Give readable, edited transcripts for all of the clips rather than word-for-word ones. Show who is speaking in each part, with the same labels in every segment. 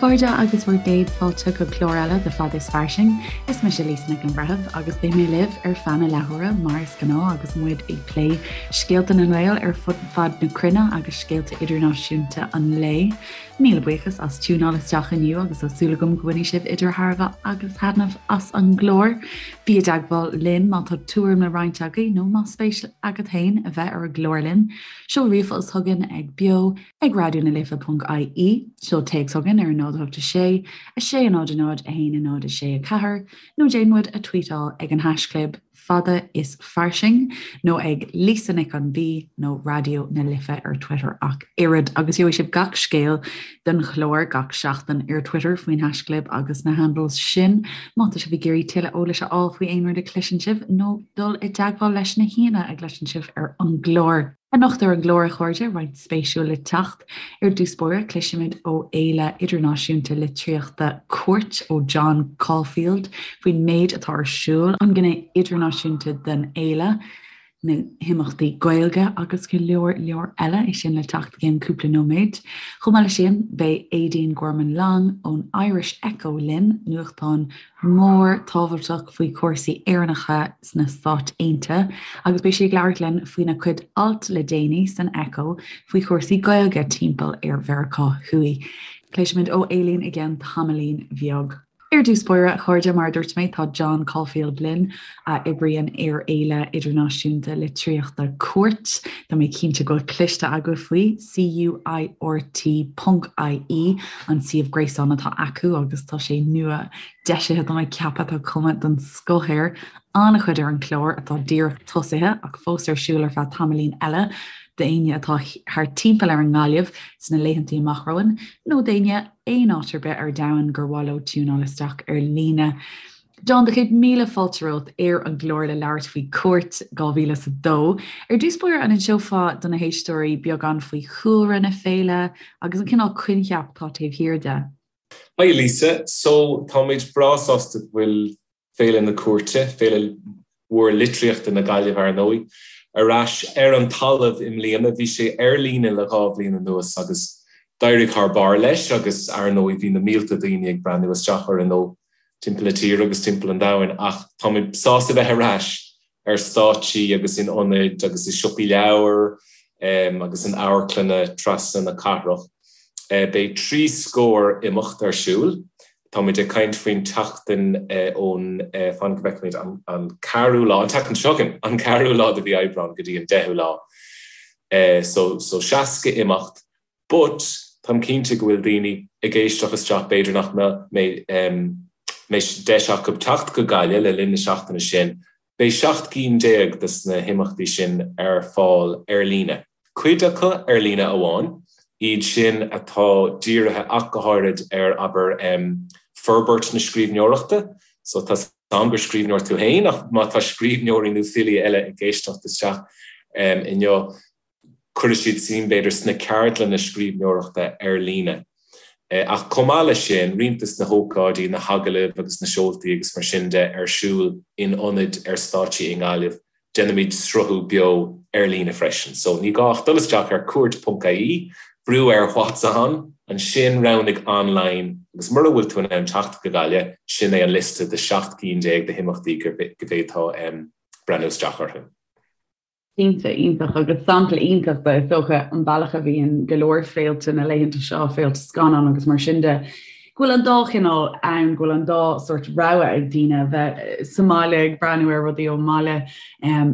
Speaker 1: chairde agus bhur gcéad fáilte go clár eile de Fada is Fairsing. Is mise Lisa Nic an Bhreithimh agus beidh mé libh ar feadh na leathuaire mar is gnáth agus muid ag plé scéalta na nGael ar fud fad na cruinne agus scéalta idirnáisiúnta an lae. Míle buíochas as tiúnáil isteach inniu agus tá súil agam go mbainfidh sibh idir thairbhe agus thaitneamh as an gclár. Bí i dteagmháil linn má tá tuairim le roinnt agaibh nó más spéis agat féin a bheith ar an gclár linn. Seol ríomhphost chugainn ag beo ag raidió na life ponc ie, seol téacs chugainn ar 0 8 6 6 0 0 1 0 6 4 nó déan muid a tweetáil ag an haischlib fada is fairsing nó ag Lisa Nic an B nó Raidió na Life ar Twitter ach oiread agus gheobhaidh sibh gach scéal den chlár gach seachtain ar Twitter faoin haischlib agus na handles sin má tá sibh ag iarraidh tuilleadh eolais a fháil faoi aon rud a chloiseann sibh nó dul i dteagmháil leis na haíonna a gcloiseann sibh ar an gclár. Anocht ar an gclár, a chairde, roinnt spéisiúil le teacht. Ar dtús báire, cloisfimid ó Fhéile Idirnáisiúnta Litríochta Cúirt ó John Caulfield faoin méid atá ar siúl, an ghné idirnáisiúnta den fhéile, na himeachtaí Gaeilge agus go leor leor eile, é sin le teacht i gceann cúpla nóiméad. Chomh maith leis sin, beidh Aedín Gorman Long ón Irish Echo linn, nuachtán mór tábhachtach faoi chúrsaí Éireannacha sna Stáit Aontaithe agus beidh sí ag labhairt linn faoina cuid alt le déanaí san Echo faoi chúrsaí Gaeilge timpeall ar Mheiriceá Thuaidh. Cloisfimid ó Aedín i gceann tamaillín bheag. Ar dtús báire, a chairde, mar a dúirt mé, tá John Caulfield linn, a oibríonn ar Fhéile Idirnáisiúnta Litríochta Cúirt. Tá mé cinnte go bhfuil cloiste agaibh faoi, CUIRT ponc IE an suíomh gréasáin atá acu agus tá sé nua deisithe tá mé ag ceapadh tá cuma den scoth air. An-chuid ar an chlár atá díreach tosaithe ach fós ar siúl ar feadh tamaillín eile d'éinne atá thart timpeall ar an nGaillimh sna laethantaí amach romhainn nó d'éinne aon áit ar bith ar domhan gur mhaith leo tiúnáil isteach ar líne. John, do chéad míle fáilte romhat ar an gclár le labhairt faoi Cúirt 2002. Ar dtús báire, an inseofá do na héisteoirí beagán faoi chúlra na féile agus an cineál coincheap atá taobh thiar de?
Speaker 2: Hi Lisa, so táimid breá sásta go bhfuil Féile na Cúirte, féile mhór litríochta na Gaillimhe ar ndóigh, ar ais ar an talamh i mbliana. Bhí sé ar líne le 2 bhliain anuas agus d'éirigh thar barr leis agus ar ndóigh bhí na mílte daoine ag breathnú isteach orainn ó timpeall na tíre agus timpeall an domhain ach táimid sásta bheith ar ais ar stáitsí agus in ionaid agus i siopaí leabhar agus in amharclanna trasna na cathrach. Beidh 3 scór imeacht ar siúl. Táimid ag caint faoin tseachtain ón, fan go bhfeicfimid, an ceathrú lá, an tseachtain seo chugainn, an ceathrú lá de mhí Aibreán go dtí an deichiú lá. So, so 60 imeacht. But, táim cinnte go bhfuil daoine ag éisteacht isteach, b'fhéidir nach mbeidh deis acu teacht go Gaillimh le linn na seachtaine sin, beidh 17 cinn de na himeachtaí sin ar fáil ar líne. Cuid acu ar líne amháin, iad sin atá dírithe ach go háirid ar, abair, forbairt na scríbhneoireachta. So tá 's a'm gur scríbhneoir tú féin ach má tá scríbhneoirí nó filí eile ag éisteacht isteach inniu, cuirfidh siad suim, b'fhéidir, sna ceardlanna scríbhneoireachta ar líne. Ach chomh maith leis sin, roinnt de na hócáidí, na hagallaimh agus na seoltaí agus mar sin de ar siúl in ionaid ar stáitsí i nGaillimh, déanaimid sruthú beo ar líne freisin. So, ní gá ach dul isteach ar cúirt.ie, brú ar What's On, ansin roghnaigh Online agus mura bhfuil tú in ann teacht go Gaillimh, sin é an liosta de 17 cinn de himeachtaí go bhféadfá breathnú isteach orthu.
Speaker 1: Cinnte, iontach agus sampla iontach de, is dócha, an bealach a bhíonn go leor féilte na laethanta seo, féilte scannán agus mar sin de, go bhfuil an dá chineál ann, go bhfuil an dá sórt rogha ag daoine a bheith sa mbaile ag breathnú ar rudaí ón mbaile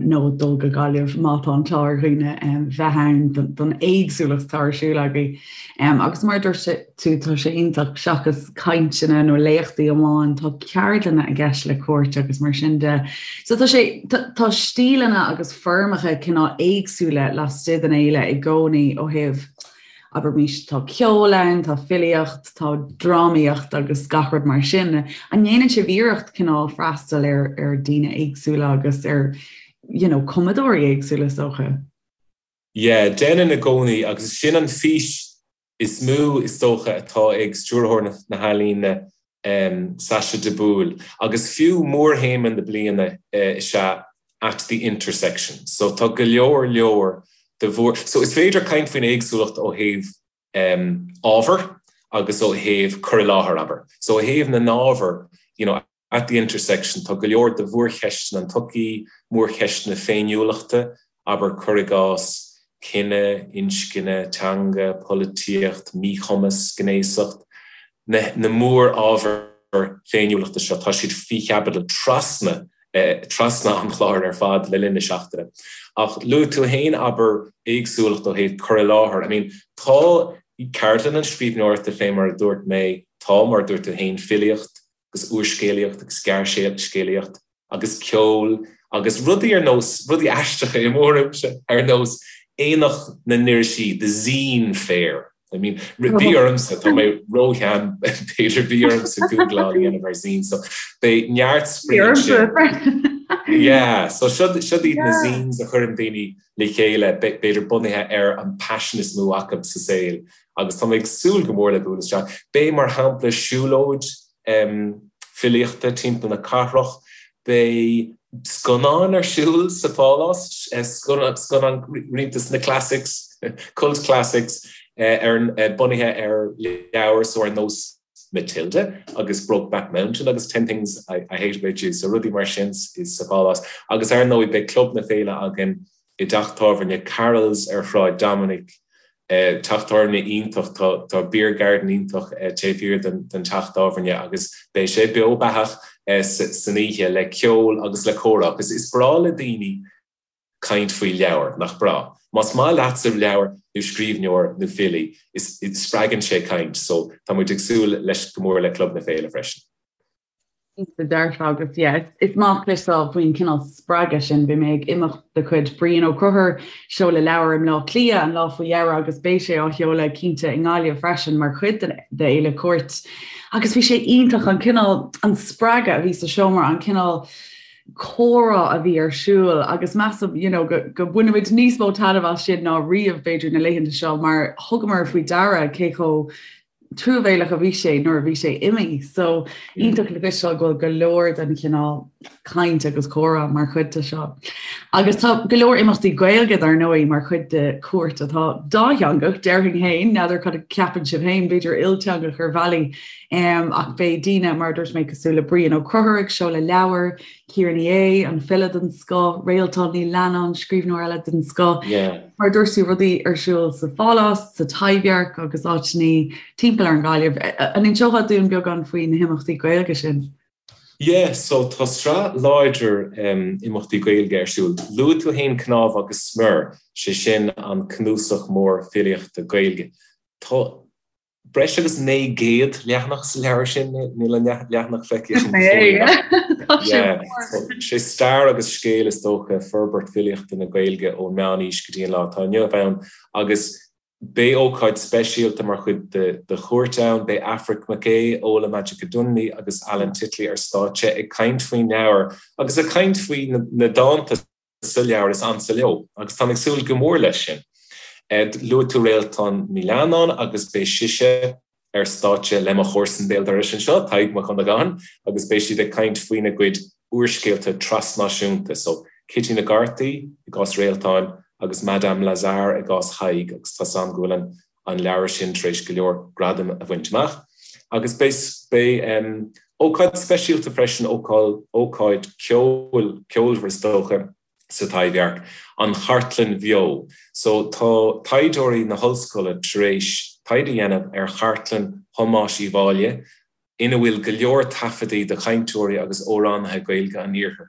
Speaker 1: nó dul go Gaillimh má tá an t-ádh ar dhaoine bheith ann don éagsúlacht atá ar siúl agaibh. Agus mar a dúirt tú, tá sé iontach, seachas cainteanna nó léachtaí amháin, tá ceardlanna i gceist le Cúirt agus mar sin de. So tá sé, tá stíleanna agus foirmeacha cineál éagsúla laistigh den fhéile i gcónaí ó thaobh, abraimis, tá ceol ann, tá filíocht, tá drámaíocht agus gach rud mar sin. An ndéanann sibh iarracht cineál freastal ar ar daoine éagsúla agus ar you know, cumadóirí éagsúla is dócha?
Speaker 2: Yeah, déanann i gcónaí agus sin an fís is mó, is dócha, atá ag Stiúrthóir na hEalaíne, Sacha de Búil, agus fiú mórthéama na bliana is ea 'At the Intersection'. So tá go leor leor de mhór. So is féidir caint faoin éagsúlacht ó thaobh ábhar. agus ó thaobh cur i láthair, abair. So ó thaobh na n-ábhar, you know, at the intersection, tá go leor de mhórcheisteanna an tsochaí, mórcheisteanna féiniúlachta, abair, cuir i gcás, cine, inscne, teanga, polaitíocht, míchumas, gnéasacht, na na mór-ábhair féiniúlachta seo, tá siad faoi chaibidil trasna trasna an chláir ar fad le linn na seachtaine. Ach luaigh tú féin, abair, éagsúlacht ó thaobh cur i láthair. I mean, tá ceardlanna scríbhneoireachta fé mar a dúirt mé, tá, mar a dúirt tú féin, filíocht agus úrscéalaíocht agus gearrscéalaíocht agus ceol agus rudaí ar nós, rudaí aisteacha i mo thuairimse, ar nós Aonach na nIrisí, The Zine Fair. I mean, bhí ormsa, tá mé róshean, b'fhéidir, bhí ormsa googláil a dhéanamh ar zine, so beidh neart spraoi ansin. Yeah, so siod iad na zines a chuireann daoine le chéile, b'fhéidir bunaithe ar an paisean is mó acu sa saol, agus tá mé ag súil go mór le bualadh isteach. Beidh, mar shampla, siúlóid filíochta timpeall na cathrach, beidh scannáin ar siúl sa Phálás, scannáin roinnt de na classics, cult classics, bunaithe ar leabhair so ar nós Matilda agus Brokeback Mountain agus Ten Things I Hate About You, so rudaí mar sin sa Phálás. Agus ar ndóigh beidh Club na Féile againn i dteach tábhairne Carroll's ar Shráid Dominic. Teach tábhairne iontach, tá beer garden iontach taobh thiar den teach tábhairne agus beidh sé beo beathach san oíche le ceol agus le comhrá agus is breá le daoine caint faoi leabhair, nach breá? Más maith leatsa leabhar nó scríbhneoir nó filí, spreagann sé caint so tá muid ag súil leis go mór le Club na Féile freisin.
Speaker 1: Cinnte dearfa agus yeah, is maith cloisteáil faoin cineál spreagadh sin. Bhí mé ag imeacht de chuid Brian Ó Conchúir, seoladh leabhar i mBleá Cliath an lá faoi dheireadh agus beidh sé á sheoladh cinnte i nGaillimh freisin mar chuid d'Fhéile Cúirt. Agus bhí sé iontach an cineál, an spreagadh a bhí sa seomra, an cineál comhrá a bhí ar siúl agus measaim you know, go, go mbainfimid níos mó taitneamh as sin ná riamh b'fhéidir na laethanta seo mar thugamar faoi deara cé chomh truamhéalach a bhí sé nuair a bhí sé imithe. So iontach le cloisteáil go bhfuil go leor den chineál caint agus comhrá mar chuid de seo. Agus tá go leor imeachtaí Gaeilge dar ndóigh mar chuid de Cúirt atá dátheangach, déarfainn féin, n'fheadar cad a ceapann sibh féin, b'fhéidir ilteangach ar bhealaí, um, ach beidh daoine mar a dúirt mé cosúil le Brian Ó Conchúir ag seoladh leabhar, Ciara Ní É, an file den scoth, Réaltán Ní Leannáin, scríbhneoir eile den scoth. Mar a dúirt tú, rudaí ar siúl sa Phálás, sa Taibhdhearc agus áiteanna timpeall ar an Ghaillimh. An inseofá dúinn beagán faoi na himeachtaí Gaeilge sin?
Speaker 2: Yeah, so tá sraith láidir imeachtaí Gaeilge ar siúl. Luaigh tú féin Cnámh agus Smior, sé sin an cnuasach mór filíochta Gaeilge. Tá breis agus 900 leathanach sa leabhar sin, níl an leathanach feicthe agam go fóill ach yeah, so sé stair agus scéal is dócha forbairt filíochta na Gaeilge ón meánaois go dtí an lá atá inniu ann agus beidh ócáid speisialta mar chuid de Chúirt ann, beidh Aifric Mac Aodha, Ola Majekodunmi agus Alan Titley ar stáitse ag caint faoin leabhar agus ag caint faoi na dánta sa leabhar is ansa leo agus táim ag súil go mór leis sin. Luaigh tú Réaltán Ní Leannáin agus beidh sise ar stáitse le mo chomharsan béal dorais anseo, Tadhg Mac Dhonnagáin, agus beidh siad ag caint faoina gcuid úrscéalta trasnáisiúnta, so Cití na gCártaí i gcás Réaltáin agus Madame Lazare i gcás Thaidhg agus tá's a'm go bhfuil an an leabhar sin tar éis go leor gradaim a bhaint amach. Agus beidh beidh ócáid speisialta freisin, ócáid ceoil, ceolmhar is dócha, sa Taibhdhearc, an Chartlann Bheo. So tá taighdeoirí na hollscoile tar éis taighde a dhéanamh ar chartlann Thomáis Uí Mháille, ina bhfuil go leor taifeadaí de chainteoirí agus amhránaithe Gaeilge an iarthair.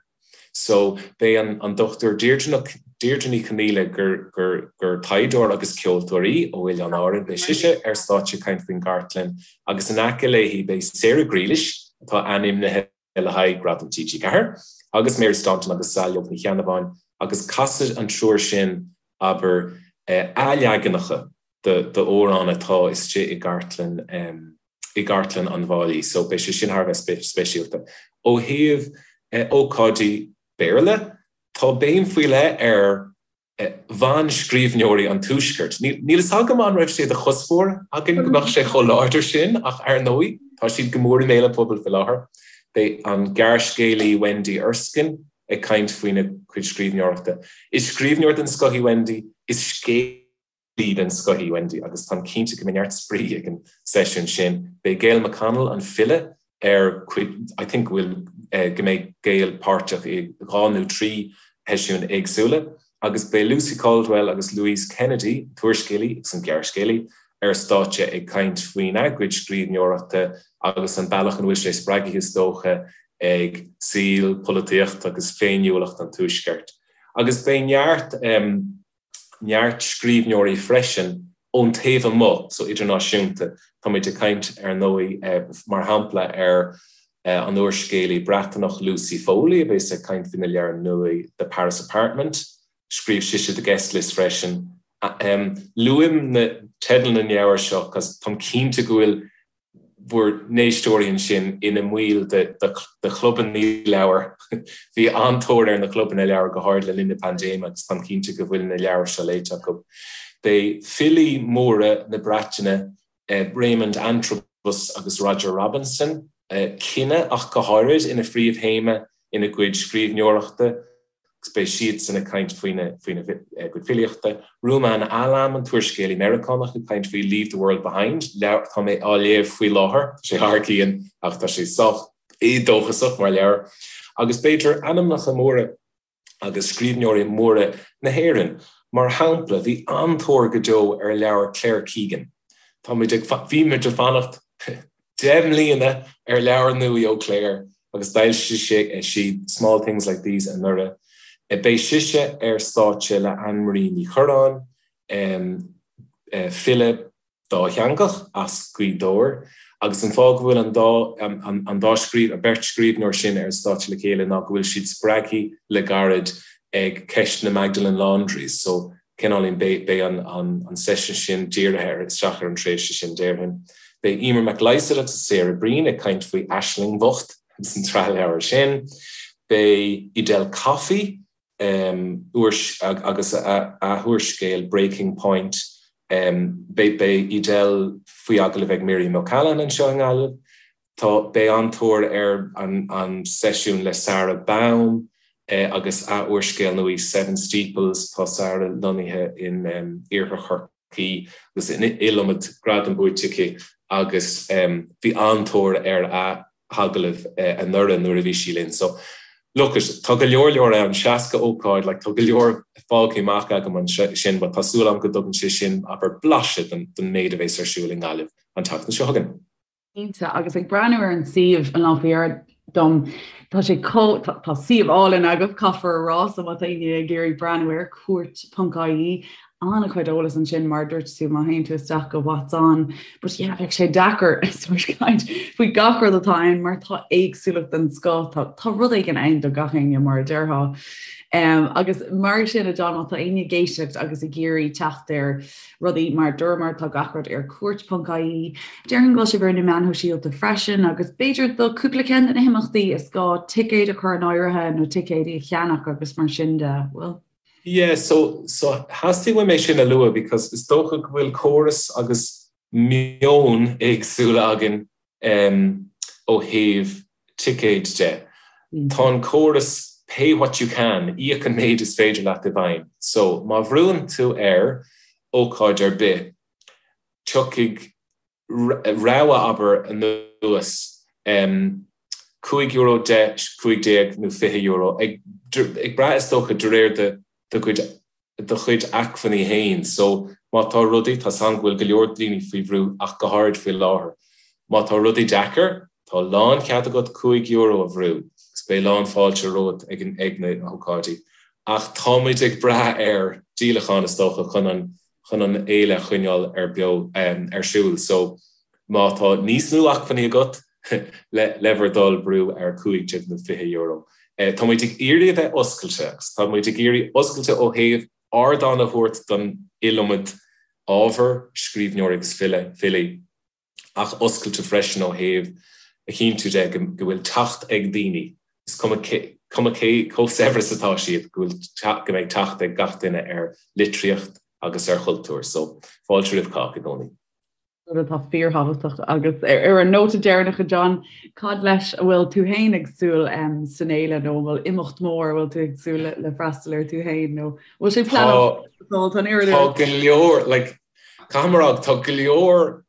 Speaker 2: So, beidh an Dr Deirdre Ní Chonaola, gur gur taighdeoir agus ceoltóir í ó Oileáin Árann, beidh sise ar stáitse ag caint faoin gcartlann agus in aice léi beidh Sarah Grealish, atá ainmnithe le haghaidh Gradam TG4, agus Mary Staunton agus Saileog Ní Cheannabháin agus casfaidh an triúr sin, abair, athleaganacha d'amhráin atá istigh i gcartlann i gcartlann an Mháille so beidh sé sin thar a bheith speisialta. Ó thaobh ócáidí Béarla, tá béim faoi leith ar bhanscríbhneoirí an Tuaiscirt. Níl fhios agam an raibh sé de chuspóir againn go mbeadh sé chomh láidir sin ach ar ndóigh tá siad go mór i mbéal an phobail faoi láthair. Beidh an gearrscéalaí Wendy Erskine ag caint faoina cuid scríbhneoireachta. Is scríbhneoir den scoth í Wendy, is scéalaí. den scoth í Wendy agus táim cinnte go mbeidh neart spraoi ag an seisiún sin. Beidh Gail McConnell, an file, ar cuid, I think go bhfuil, go mbeidh Gail páirteach i 2 nó 3 sheisiún éagsúla agus beidh Lucy Caldwell agus Louise Kennedy, an t-úrscéalaí agus an gearrscéalaí, ar stáitse ag caint faoina gcuid scríbhneoireachta agus an bealach ina bhfuil sé spreagtha is dócha ag saol, polaitíocht agus féiniúlacht an Tuaiscirt. Agus beidh neart neart scríbhneoirí freisin ón taobh amuigh, so idirnáisiúnta. Táimid ag caint, ar ndóigh, mar shampla, ar an úrscéalaí Breatanach Lucy Foley a bheas ag caint faoina leabhar nua The Paris Apartment. Scríobh sise The Guest List freisin. Luaim na teidil na leabhar seo cos táim cinnte go bhfuil bhur n-éisteoirí ansin ina mbaill de chlubanna leabhar. Bhí an-tóir ar na clubanna leabhar, go háirid le linn na paindéime, agus táim cinnte go bhfuil na leabhair seo léite acu. Beidh filí móra na Breataine, Raymond Antrobus agus Roger Robinson, cine ach go háirid, ina phríomhthéama ina gcuid scríbhneoireachta. agus beidh siadsan ag caint faoina gcuid filíochta. Rumaan Alam, an t-úrscéalaí Meiriceánach, ag caint faoi Leave the World Behind, leabhar atá mé á léamh faoi láthair. Tá sé thar cionn ach tá sé sách éadóchasach mar leabhar. Agus b'fhéidir ainmneacha móra agus scríbhneoirí móra na hÉireann. Mar shampla, bhí an-tóir go deo ar leabhar Claire Keegan. Tá muid ag, bhí muid ag fanacht 10 mbliana ar leabhar nua ó Claire agus d'fhoilsigh sí Small Things Like These anuraidh. Beidh sise ar stáitse le Anne Marie Ní Churráin, file dátheangach as Gaoth Dobhair, agus an fáth go bhfuil an dá an dá scríobh an beirt scríbhneoir sin ar an stáitse le chéile ná go bhfuil siad spreagtha le gairid ag ceist na Magdalene Laundries so cineáilín beidh an seisiún sin dírithe ar isteach ar an tréimhse sin déarfainn. Beidh Emer McLysaght agus Sarah Breen ag caint faoi Aisling Bhocht agus an tsraith leabhar sin. Beidh Edel Coffey agus a húrscéal Breaking Point, beidh Edel faoi agallamh ag Miriam O'Callaghan anseo i nGaillimh. Tá, beidh an-tóir ar an seisiún le Sara Baume agus a úrscéal nua Seven Steeples. Tá Sara lonnaithe in iarthar Chorcaí agus an iliomad gradam buaite aici agus bhí an-tóir ar a hagallamh anuraidh nuair a bhí sí linn. So, look it, tá go leor leor ann, 60 ócáid, like tá go leor fágtha amach agam ansin but tá súil agam go dtugann sé sin, abair, blaiseadh den méid a bheas ar siúl i nGaillimh an tseachtain seo chugainn.
Speaker 1: Cinnte, agus ag breathnú ar an suíomh an lá faoi dheireadh dom, tá sé chomh, tá suíomh álainn agaibh, caithfear a rá, so má tá éinne ag iarraidh breathnú air, cúirt.ie, an-chuid eolas ansin mar a dúirt tú má théann tú isteach go what's on, but yeah, bheadh sé deacair sort caint faoi gach rud atá ann mar tá éagsúlacht den scoth, tá, tá rud éigin ann do gach éinne mar a déarfá. Um, agus mar sin a John, má tá éinne ag éisteacht agus ag iarraidh teacht ar rudaí mar dúramar tá gach rud ar cúirt.ie. Déarfainn go bhfuil sibh ar na meáin shóisialta freisin agus b'fhéidir do cúpla ceann de na himeachtaí is gá ticéid a chur in áirithe nó ticéidí a cheannach agus mar sin de, bhfuil?
Speaker 2: Yeah, so, so theastaigh uaim é sin a lua because is dócha go bhfuil córas agus meon éagsúla againn ó thaobh ticéid de. Tá an córas pay what you can, íoc an méid is féidir leat i bhfeidhm. So, má bhrúann tú ar ócáid ar bith, tiocfaidh rogha, abair, anuas, €5, 10, 15 nó €20, ag brath is dócha de réir do chuid do chuid acmhainní féin. So, má tá rudaí, tá 's agam go bhfuil go leor daoine faoi bhrú ach go háirid faoi láthair. Má tá rudaí deacair, tá lánchead agat €5 a bhrú agus beidh lán fáilte romhat ag an, ag na hócáidí. Ach tá muid ag brath ar díolacháin is dócha chun an, chun an fhéile a choinneáil ar beo, ar siúl. So, má tá níos mó acmhainní agat, le, le bhur dtoil brú ar 15 nó €20. Tá muid ag iarraidh a bheith oscailte agus tá muid ag iarraidh oscailte ó thaobh ardán a thabhairt don iliomad ábhar, scríbhneoirí agus file, filí, ach oscailte freisin ó thaobh a chinntiú de go bhfuil teacht ag daoine, is cuma cé cuma cé chomh saibhir is atá siad, go bhfuil go mbeidh teacht ag gach duine ar litríocht agus ar chultúr. So, fáilte roimh chách i gcónaí.
Speaker 1: Rud atá fíorthábhachtach agus ar an nóta deireanach a John, cad leis a bhfuil tú féin ag súil san fhéile nó an bhfuil imeacht mór a bhfuil tú ag súil le freastal air tú féin nó bhfuil sé pleanáilte?
Speaker 2: Tá go leor, like, caithfidh mé a rá, tá go leor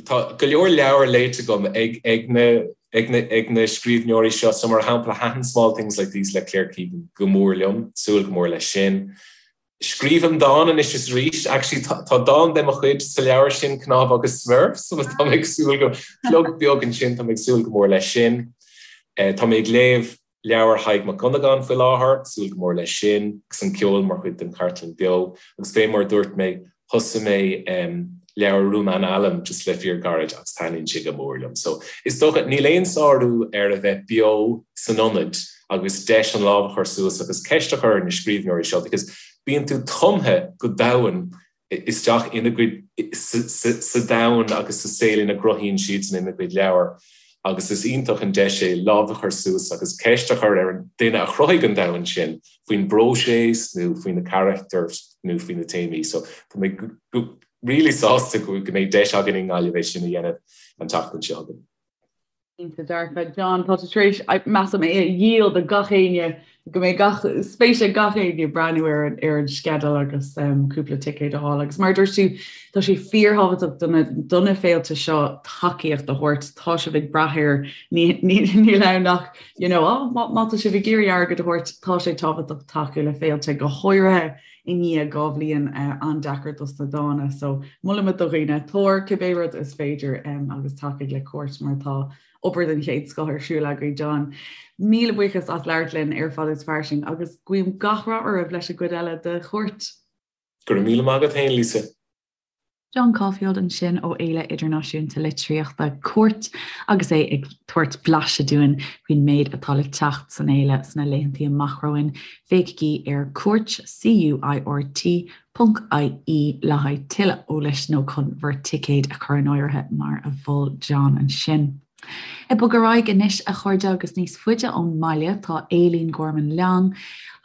Speaker 2: Tá go leor leabhar léite agam ag ag na ag na ag na scríbhneoirí seo, so mar shampla thaitin Small Things Like These le Claire Keegan go mór liom, súil go mór leis sin. Scríobhaim dán anois is arís, actually tá tá dán de mo chuid sa leabhar sin, Cnámha agus Smior, so tá mé ag súil go, plug beag ansin, tá mé ag súil go mór leis sin. Tá mé ag léamh Leabhar Thaidhg Mac Dhonnagáin faoi láthair, súil go mór leis sin, agus an ceol mar chuid den chartlann beo. Agus fé mar a dúirt mé, thosaigh mé leabhar Rumaan Alam just le fíor gairid agus taitníonn sé go mór liom. So, is dócha, níl aon sárú ar a bheith beo san ionad agus deis an lámh a chur suas agus ceist a chur ar na scríbhneoirí seo because bíonn tú tumtha go domhain isteach ina gcuid, sa domhan agus sa saol ina gcruthaíonn siadsan ina gcuid leabhar agus is iontach an deis é lámh a chur suas agus ceist a chur ar an duine a chruthaigh an domhan sin faoin bpróiseas nó faoi na carachtair nó faoi na téamaí. So tá mé really sásta go mbeidh deis againn i nGaillimh é sin a dhéanamh an tseachtain seo chugainn.
Speaker 1: Cinnte dearfa. John, tá tú tar éis, measaim, é a dhíol do gach éinne, go mbeidh gach, spéis ag gach éinne breathnú ar an, ar an sceideal agus cúpla ticéad a fháil. Agus mar a dúirt tú, tá sé fíorthábhachtach do na, do na féilte seo tacaíocht a thabhairt. Tá sibh ag brath air, ní, ní, níl ann ach, you know, oh, má, má tá sibh ag iarraidh airgead a thabhairt, tá sé tábhachtach tacú le féilte, go háirithe i ndiaidh 2 bhliain an-deacair dos na dána. So molaimid do dhaoine, tabhair cibé rud is féidir agus tacaigh le Cúirt mar tá obair den chéad scoth ar siúl agaibh. John, míle buíochas as labhairt linn ar Fada is Fairsing agus guím gach rath oraibh leis an gcuid eile de Chúirt.
Speaker 2: Go raibh míle maith agat féin, Lisa.
Speaker 1: John Caulfield ansin ó Fhéile Idirnáisiúnta Litríochta Cúirt agus é ag tabhairt blaiseadh dúinn faoin méid atá le teacht san fhéile sna laethantaí amach romhainn. Féachaigí ar Cúirt, C-U-I-R-T, ponc I-E le haghaidh tuilleadh eolais nó chun bhur ticéid a chur in áirithe mar a mhol John ansin. Ag bogadh ar aghaidh anois, a chairde, agus níos faide ón mbaile tá Aileen Gorman Long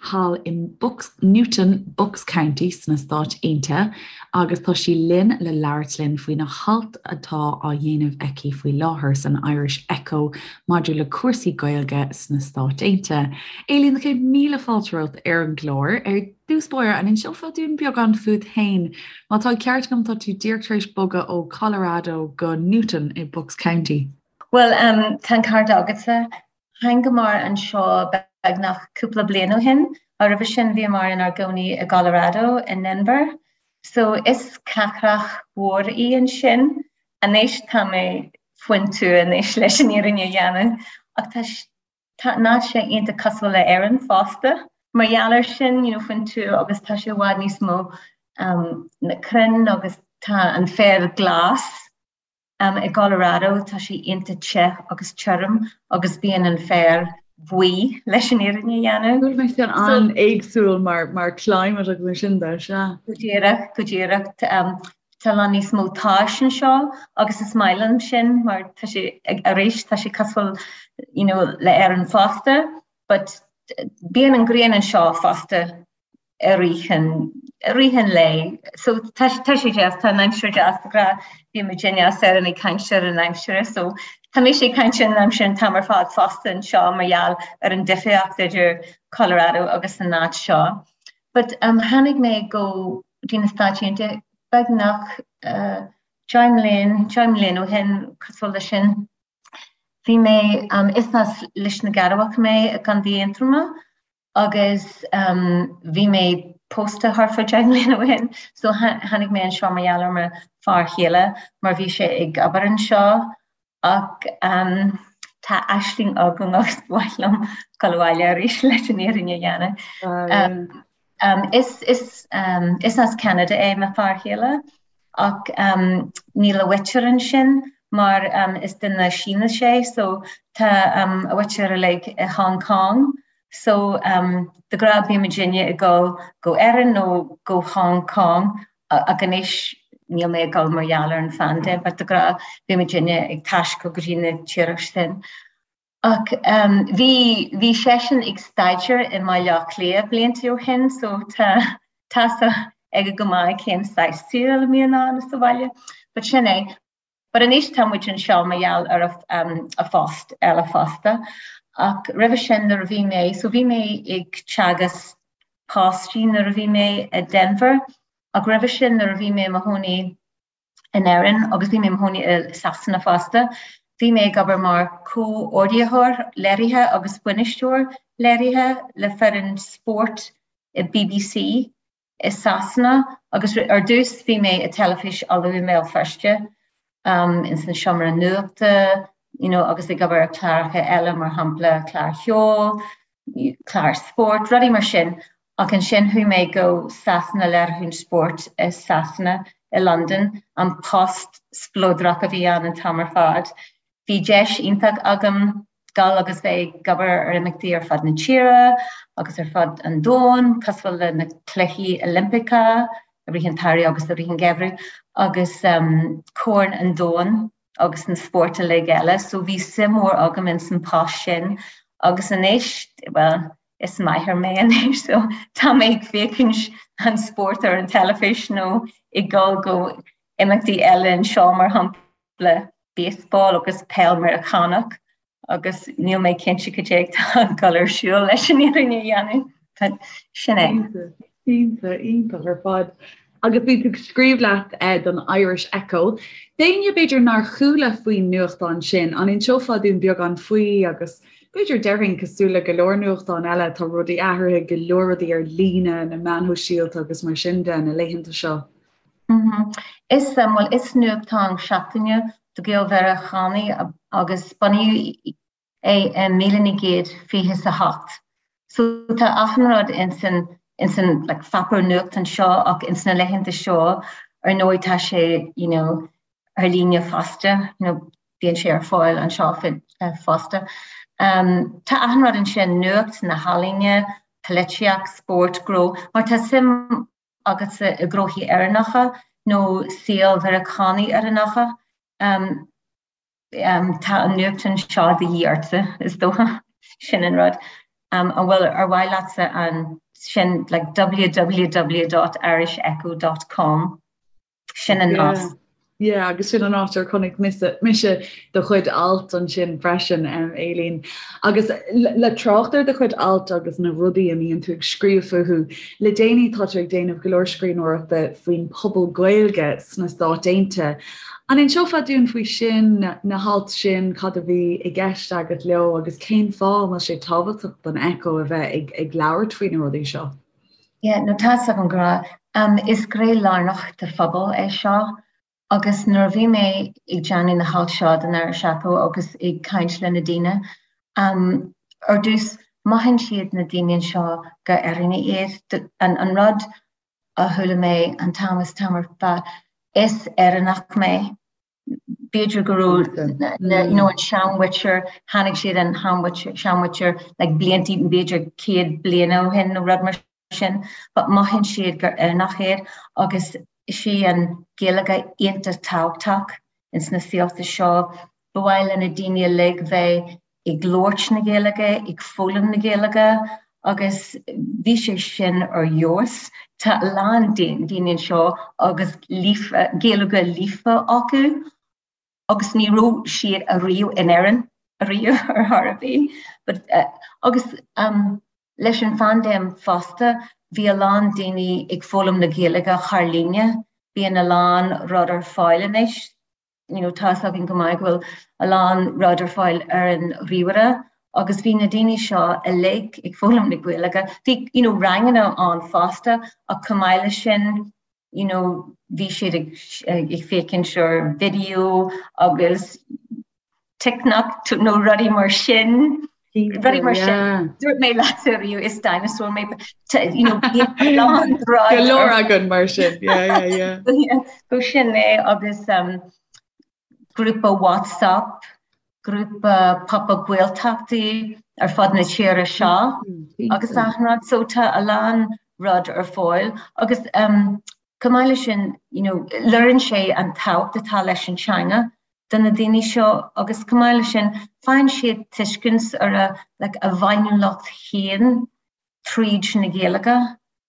Speaker 1: thall i Bucks, Newton, Bucks County sna Stáit Aontaithe agus tá sí linn le labhairt linn faoina halt atá á dhéanamh aici faoi láthair san Irish Echo maidir le cúrsaí Gaeilge sna Stáit Aontaithe. Aileen, na chéad míle fáilte romhat ar an gclár. Ar dtús báire, an inseofá dúinn beagán fút féin? Má tá an ceart agam, tá tú díreach tar éis bogadh ó Colorado go Newton i Bucks County.
Speaker 3: Bhuel, tá an ceart agatsa. Thángamar anseo beagnach cúpla bliain ó shin. Roimhe sin bhíomar inár gcónaí i gColorado, i nDenver. So is cathrach mhór í ansin. Anois tá mé faoin tuath anois leis an fhírinne a dhéanamh. Ach tá Tá an áit sé iontach cosúil le Éirinn fosta. Mar gheall air sin, you know, faoin tuath agus tá sé i bhfad níos mó um, na crainn agus tá an féar glas. Um, I gColorado tá sé iontach te agus tirim agus bíonn an féar buí leis an fhírinne a dhéanamh.
Speaker 1: Bhfuil mé sin an-éagsúil mar, mar climate agus mar sin de, sea.
Speaker 3: Go díreach, go díreach. Um, Tá a lán níos mó tais anseo agus is maith liom sin mar tá sé arís tá sé cosúil you know, le Éirinn fosta but bíonn an ghrian anseo fosta i rith an, i rith an lae. So tá, tá sé deas, tá an aimsir deas de ghnáth, bíonn muidinne as Éirinn ag caint ar an aimsir so tá mise ag caint ar an aimsir an t-am ar fad fosta anseo mar gheall ar an difríocht idir Colorado agus an áit seo. But um, tháinig mé go dtí na Stáit Aontaithe beagnach 10 mbliain, 10 mbliain ó shin, cosúil leis sin. Bhí mé, is as Lios na gCearrbhach mé i gContae Aontroma agus bhí mé pósta thart fá 10 mbliana ó shin so tháinig mé anseo mar gheall ar mo fear chéile mar bhí sé ag obair anseo Ach tá aisling agam agus ba mhaith liom dul abhaile arís leis an fhírinne a dhéanamh. Is, is, is as Ceanada é mo fear chéile ach níl a mhuintir ansin mar is duine Sínis é so tá a mhuintir uilig i Hong Kong so de ghnáth bíonn muidinne ag dul go Éirinn nó go Hong Kong Ach anois níl mé ag dul mar gheall ar an phaindéim, but de ghnáth bhí muidinne ag taisteal go dtí na tíortha sin. Ach bhí, bhí seisean ag staidéar i mBaile Átha Cliath blianta ó shin so tá, tá a fhios aige go maith cén saghas saoil a mbíonn ann sa bhaile. But sin é. But anois tá muid anseo mar gheall ar a phost eile fosta. Ach roimhe sin nuair a bhí mé, so bhí mé ag teagasc páistí nuair a bhí mé i Denver ach roimhe sin nuair a bhí mé i mo chónaí in Éirinn agus bhí mé i mo chónaí i Sasana fosta, bhí mé ag obair mar comhordaitheoir léirithe agus bainisteoir léirithe le foireann spóirt i BBC i Sasana agus ar dtús bhí mé i Teilifís Uladh i mBéal Feirste ins an seomra nuachta you know agus ag obair ar chláracha eile mar shampla cláir cheoil, cláir spóirt, rudaí mar sin ach ansin chuaigh mé go Sasana léiriúchán spóirt i Sasana i Londain, an post spleodrach a bhí ann an t-am ar fad. Bhí deis iontach agam dul agus bheith ag obair ar imeachtaí ar fud na tíre agus ar fud an domhain, cosúil le na Cluichí Oilimpeacha i rith an tsamhraidh agus i rith an gheimhridh, agus Corn an Domhain agus na spóirt uilig eile. So bhí suim mhór agam ins an post sin agus anois, bhuel, is máthair mé anois so tá mé ag féachaint an spórt ar an teilifís nó ag dul go imeachtaí eile anseo mar shampla. baseball agus peil Meiriceánach agus níl mé cinnte cad é atá ag dul ar siúl leis an fhírinne a dhéanamh, but sin é.
Speaker 1: Iontach, iontach ar fad. Agus bhí tú ag scríobh leat eh, don Irish Echo. D'éinne b'fhéidir nár chuala faoin nuachtán sin, an inseofá dúinn beagán faoi agus b'fhéidir déarfainn cosúil le go leor nuachtán eile tá rudaí athraithe, go leor rudaí ar líne, na meáin shóisialta agus mar sin de na laethanta seo.
Speaker 3: Is, bhuel, is nuachtán seachtaine do Ghael-Mheiriceánaigh agus bunaíodh é i 1928. So tá achan rud ins an, ins an like pháipéar nuachtán seo ach ins na laethanta seo ar ndóigh tá sé you know ar líne fosta, you know bíonn sé ar fáil anseo fosta. Tá achan rud ansin, nuacht, na healaíona, polaitíocht, spórt, gnó, má tá suim agatsa i ngnóthaí Éireannacha nó saol Mheiriceánaigh Éireannacha, tá an nuachtán seo de dhíth ortsa, is dócha. Sin an rud. An bhfuil, ar mhaith leatsa an, sin like www.irishecho dot com. Sin an nasc.
Speaker 1: Yeah, agus sin an áit ar chonaic mise, mise do chuid alt ansin freisin, um, Aileen. Agus le trácht ar do chuid alt agus na rudaí a mbíonn tú ag scríobh fúthu, le déanaí tá tú ag déanamh go leor scríbhneoireachta faoin pobal Gaeilge sna Stáit Aontaithe. An inseofá dúinn faoi sin, na hailt sin, cad a bhí i gceist agat leo agus cén fáth a bhfuil sé tábhachtach don Echo a bheith ag, ag labhairt faoi na rudaí seo?
Speaker 3: Yeah, no tá's agam go raibh. Is gné lárnach de phobal é seo agus nuair a bhí mé ag déanamh na halt seo don Irish Echo agus ag caint le na daoine, ar dtús mothaíonn siad na daoine anseo gur Éireannaigh iad. An rud a chuala mé an t-am is t-am ar fad, is Éireannach mé. B'fhéidir go raibh you know an seanmhuintir, tháinig siad an seanmhuintir like blianta b'fhéidir 100 bliana ó shin nó rud mar sin, but mothaíonn siad gur Éireannach iad agus is í an Ghaeilge iontach tábhachtach ins na saolta seo. Ba mhaith le na daoine uilig bheith ag labhairt na Gaeilge, ag foghlaim na Gaeilge agus bhí sé sin ar fheabhas. Tá a lán daoine anseo agus líofa, Gaeilge líofa acu agus ní raibh siad ariamh in Éirinn ariamh ar chor ar bith. But agus leis an phaindéim fosta bhí a lán daoine ag foghlaim na Gaeilge thar líne. Bíonn a lán rud ar fáil anois. you know tá's againn go maith go bhfuil a lán rud ar fáil ar an ríomhaire agus bhí na daoine seo uilig ag foghlaim na Gaeilge. Bhí you know ranganna ann fosta ach chomh maith leis sin you know bhí siad ag ag féachaint ar video agus TikTok nó rudaí mar sin. Rudaí mar sin. Dúirt mé leat ariamh is dinosaur mé you know
Speaker 1: Go leor againn mar sin. Yeah, yeah,
Speaker 3: yeah. Go sin é agus um, grúpa WhatsApp, grúpa pop-up Gaeltachtaí ar fud na tíre seo mm, agus achan rud so tá a lán rud ar fáil agus um, chomh maith leis sin you know, léiríonn sé an tábhacht atá leis an teanga do na daoine seo agus chomh maith leis sin faigheann siad tuiscint ar a like a bhféiniúlacht féin tríd na Gaeilge.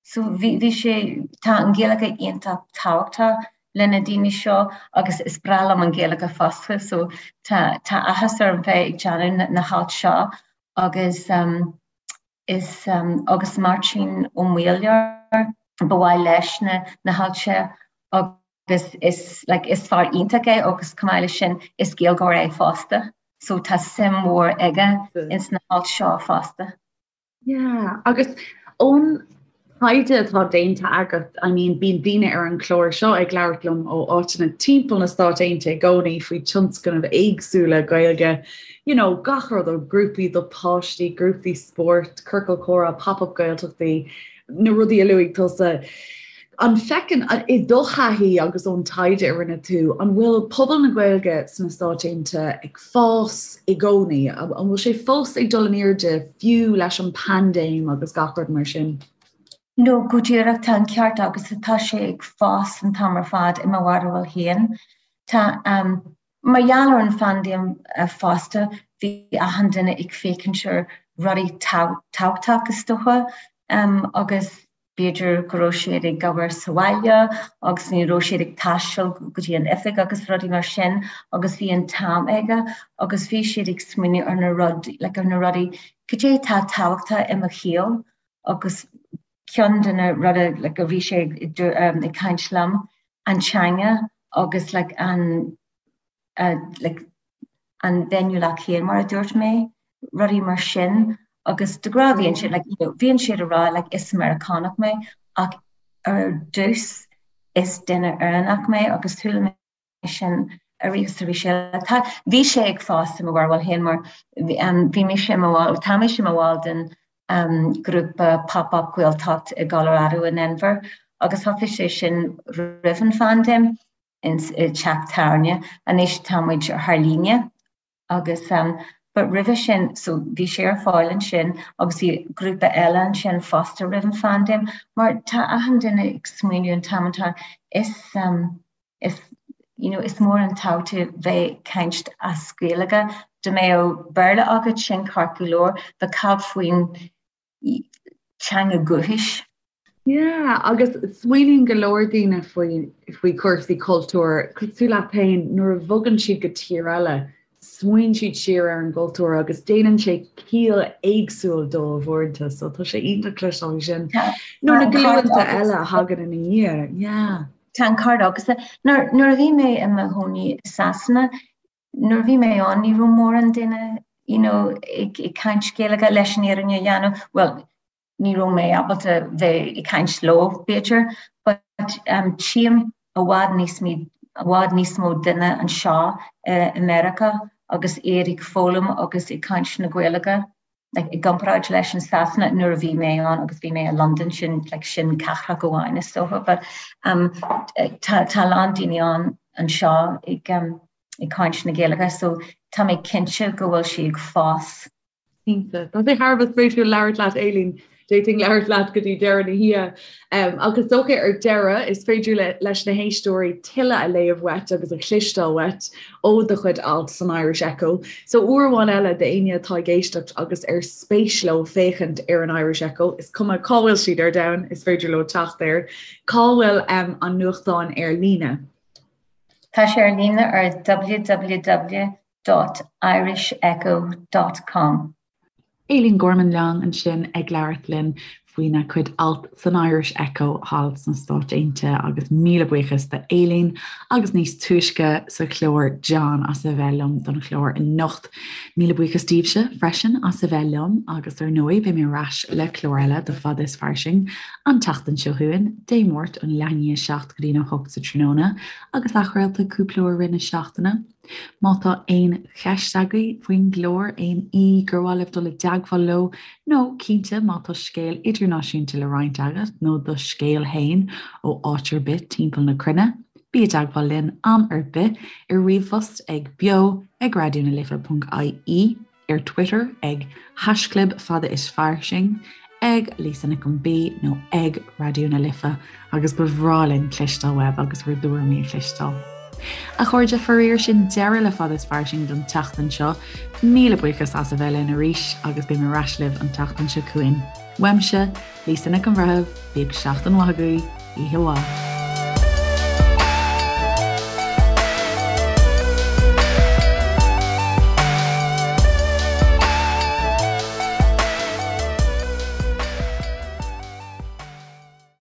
Speaker 3: So bhí bhí sé tá an Ghaeilge iontach tábhachtach. le na daoine seo agus is breá liom an Ghaeilge fosta so tá tá áthas orm bheith ag déanamh na, na halt seo agus um, is um, agus Máirtín Ó Maolaodha ba mhaith leis na, na halt seo agus is like is fear iontach é agus chomh maith leis sin is Gaeilgeoir é fosta so tá suim mhór aige ins na halt seo fosta.
Speaker 1: Yeah, agus ón taighde atá déanta agat, I mean, bíonn daoine ar an chlár seo ag labhairt liom ó áiteanna timpeall na Stáit Aontaithe i gcónaí faoi tionscnaimh éagsúla Gaeilge, you know, gach rud ó grúpaí do páistí, grúpaí spóirt, ciorcal comhrá, pop-up Gaeltachtaí, na rudaí a luaigh tusa. An bhfeiceann, i do thaithí agus ón taighde a rinne tú, an bhfuil pobal na Gaeilge sna Stáit Aontaithe ag fás i gcónaí? An bhfuil sé fós ag dul in airde fiú leis an paindéim agus gach rud mar sin?
Speaker 3: No, go díreach, tá an ceart agat, tá sé ag fás an t-am ar fad i mo bharúil féin. Tá, Mar gheall ar an phaindéim fosta, bhí achan duine ag féachaint ar rudaí tábhachtach is dócha agus b'fhéidir go raibh siad ag obair sa bhaile agus ní raibh siad ag taisteal go dtí an oifig agus rudaí mar sin agus bhí an t-am aige agus bhí siad ag smaoineamh ar na rud, like ar na rudaí, cad é atá tábhachtach i mo shaol agus ceann de na rudaí like a bhí sé ag caint liom an teanga agus like an like an bhféiniúlacht féin mar a dúirt mé, rudaí mar sin agus de ghnáth bhíonn siad like you know bhíonn siad ag rá like is Meiriceánach mé ach ar dtús is duine Éireannach mé agus chuala mé sin arís is arís eile. Tá, bhí sé ag fás i mo bharúil féin mar bhí mise i mo bhall, tá mise i mo bhall den grúpa Pop Up Gaeltacht i gColorado i nDenver agus thosaigh sé sin roimh an phaindéim i dteach tábhairne. Anois tá muid thar líne agus but roimhe sin, so bhí sé ar fáil ansin agus bhí grúpa eile ansin fosta roimh an phaindéim mar tá achan duine ag smaoineamh an t-am atá is is you know is mór an tábhacht bheith ag caint as Gaeilge. Dá mbeadh Béarla agat sin ceart go leor, but cad faoin teanga dhúchais?
Speaker 1: Yeah, agus smaoiníonn go leor daoine faoi faoi chúrsaí cultúir, cosúil leat féin, nuair a bhogann siad go tír eile, smaoiníonn siad siar ar an gcultúr agus déanann sé ciall éagsúil dóibh uaireanta, so tá sé iontach cloisteáil sin. Nó na glúnta eile a thagann ina dhiaidh, yeah.
Speaker 3: Tá an ceart agat. Nuair nuair a bhí mé i mo chónaí i Sasana, nuair a bhí mé ann ní raibh mórán duine you know, ag ag caint Gaeilge leis an fhírinne a dhéanamh, well, ní raibh mé ábalta bheith ag caint leo b'fhéidir, but um, tchím i bhfad níos i bhfad níos mó duine anseo i Meiriceá agus iad ag foghlaim agus ag caint na Gaeilge like, i gcomparáid leis an Sasana nuair a bhí mé ann agus bhí mé i London sin like, sin cathrach amháin is dócha, but um, tá tá a lán daoine ann anseo ag um, ag caint na Gaeilge so tá mé cinnte go bhfuil sí ag fás.
Speaker 1: Cinnte. Tá sé thar a bheith spéisiúil labhairt leat Aileen. D'fhéadfainn labhairt leat go dtí deireadh na hoíche. Ach is dócha ar deireadh, is féidir leis na héisteoirí tuilleadh a léamh uait agus a chloisteáil uait ó do chuid alt san Irish Echo. So uair amháin eile d'éinne atá ag éisteacht agus ar spéis leo féachaint ar an Irish Echo, is cuma cá bhfuil siad ar domhan, is féidir leo teacht air. Cá bhfuil an nuachtán ar líne?
Speaker 3: Tá sé ar líne ar www dot irishecho dot com.
Speaker 1: Aileen Gorman Long ansin ag labhairt linn faoina cuid alt san Irish Echo thall sna Stáit Aontaithe agus míle buíochas do Aileen agus níos túisce sa chlár John as a bheith liom don chlár anocht. Míle buíochas daoibhse freisin as a bheith liom agus ar ndóigh beidh mé ar ais le clár eile de Fada is Fairsing an tseachtain seo chugainn, Dé Máirt ón leath i ndiaidh a 7 go dtí'n 8 sa tráthnóna agus athchraolta cúpla uair i rith na seachtaine. Má tá aon cheist agaibh faoin gclár, aon aoi gur mhaith libh dul i dteagmháil leo, nó cinnte má tá scéal idirnáisiúnta le roinnt agat nó do scéal fhéin ó áit ar bith timpeall na cruinne, bí i dteagmháil linn am ar bith ar ríomhphost ag beo ag raidionalife.ie. ar Twitter ag haischlib fada is fairsing, ag Lisa Nic an B nó ag Raidió na Life agus ba bhreá linn cloisteáil uaibh agus bhur dtuairimí a chloisteáil. A chairde, faraor sin deireadh le Fada is Fairsing don tseachtain seo. Míle buíochas as a bheith linn arís agus beidh mé ar ais libh an tseachtain seo chugainn. Uaimse, Lisa Nic an Bhreithimh, bíodh seachtain mhaith agaibh, oíche mhaith.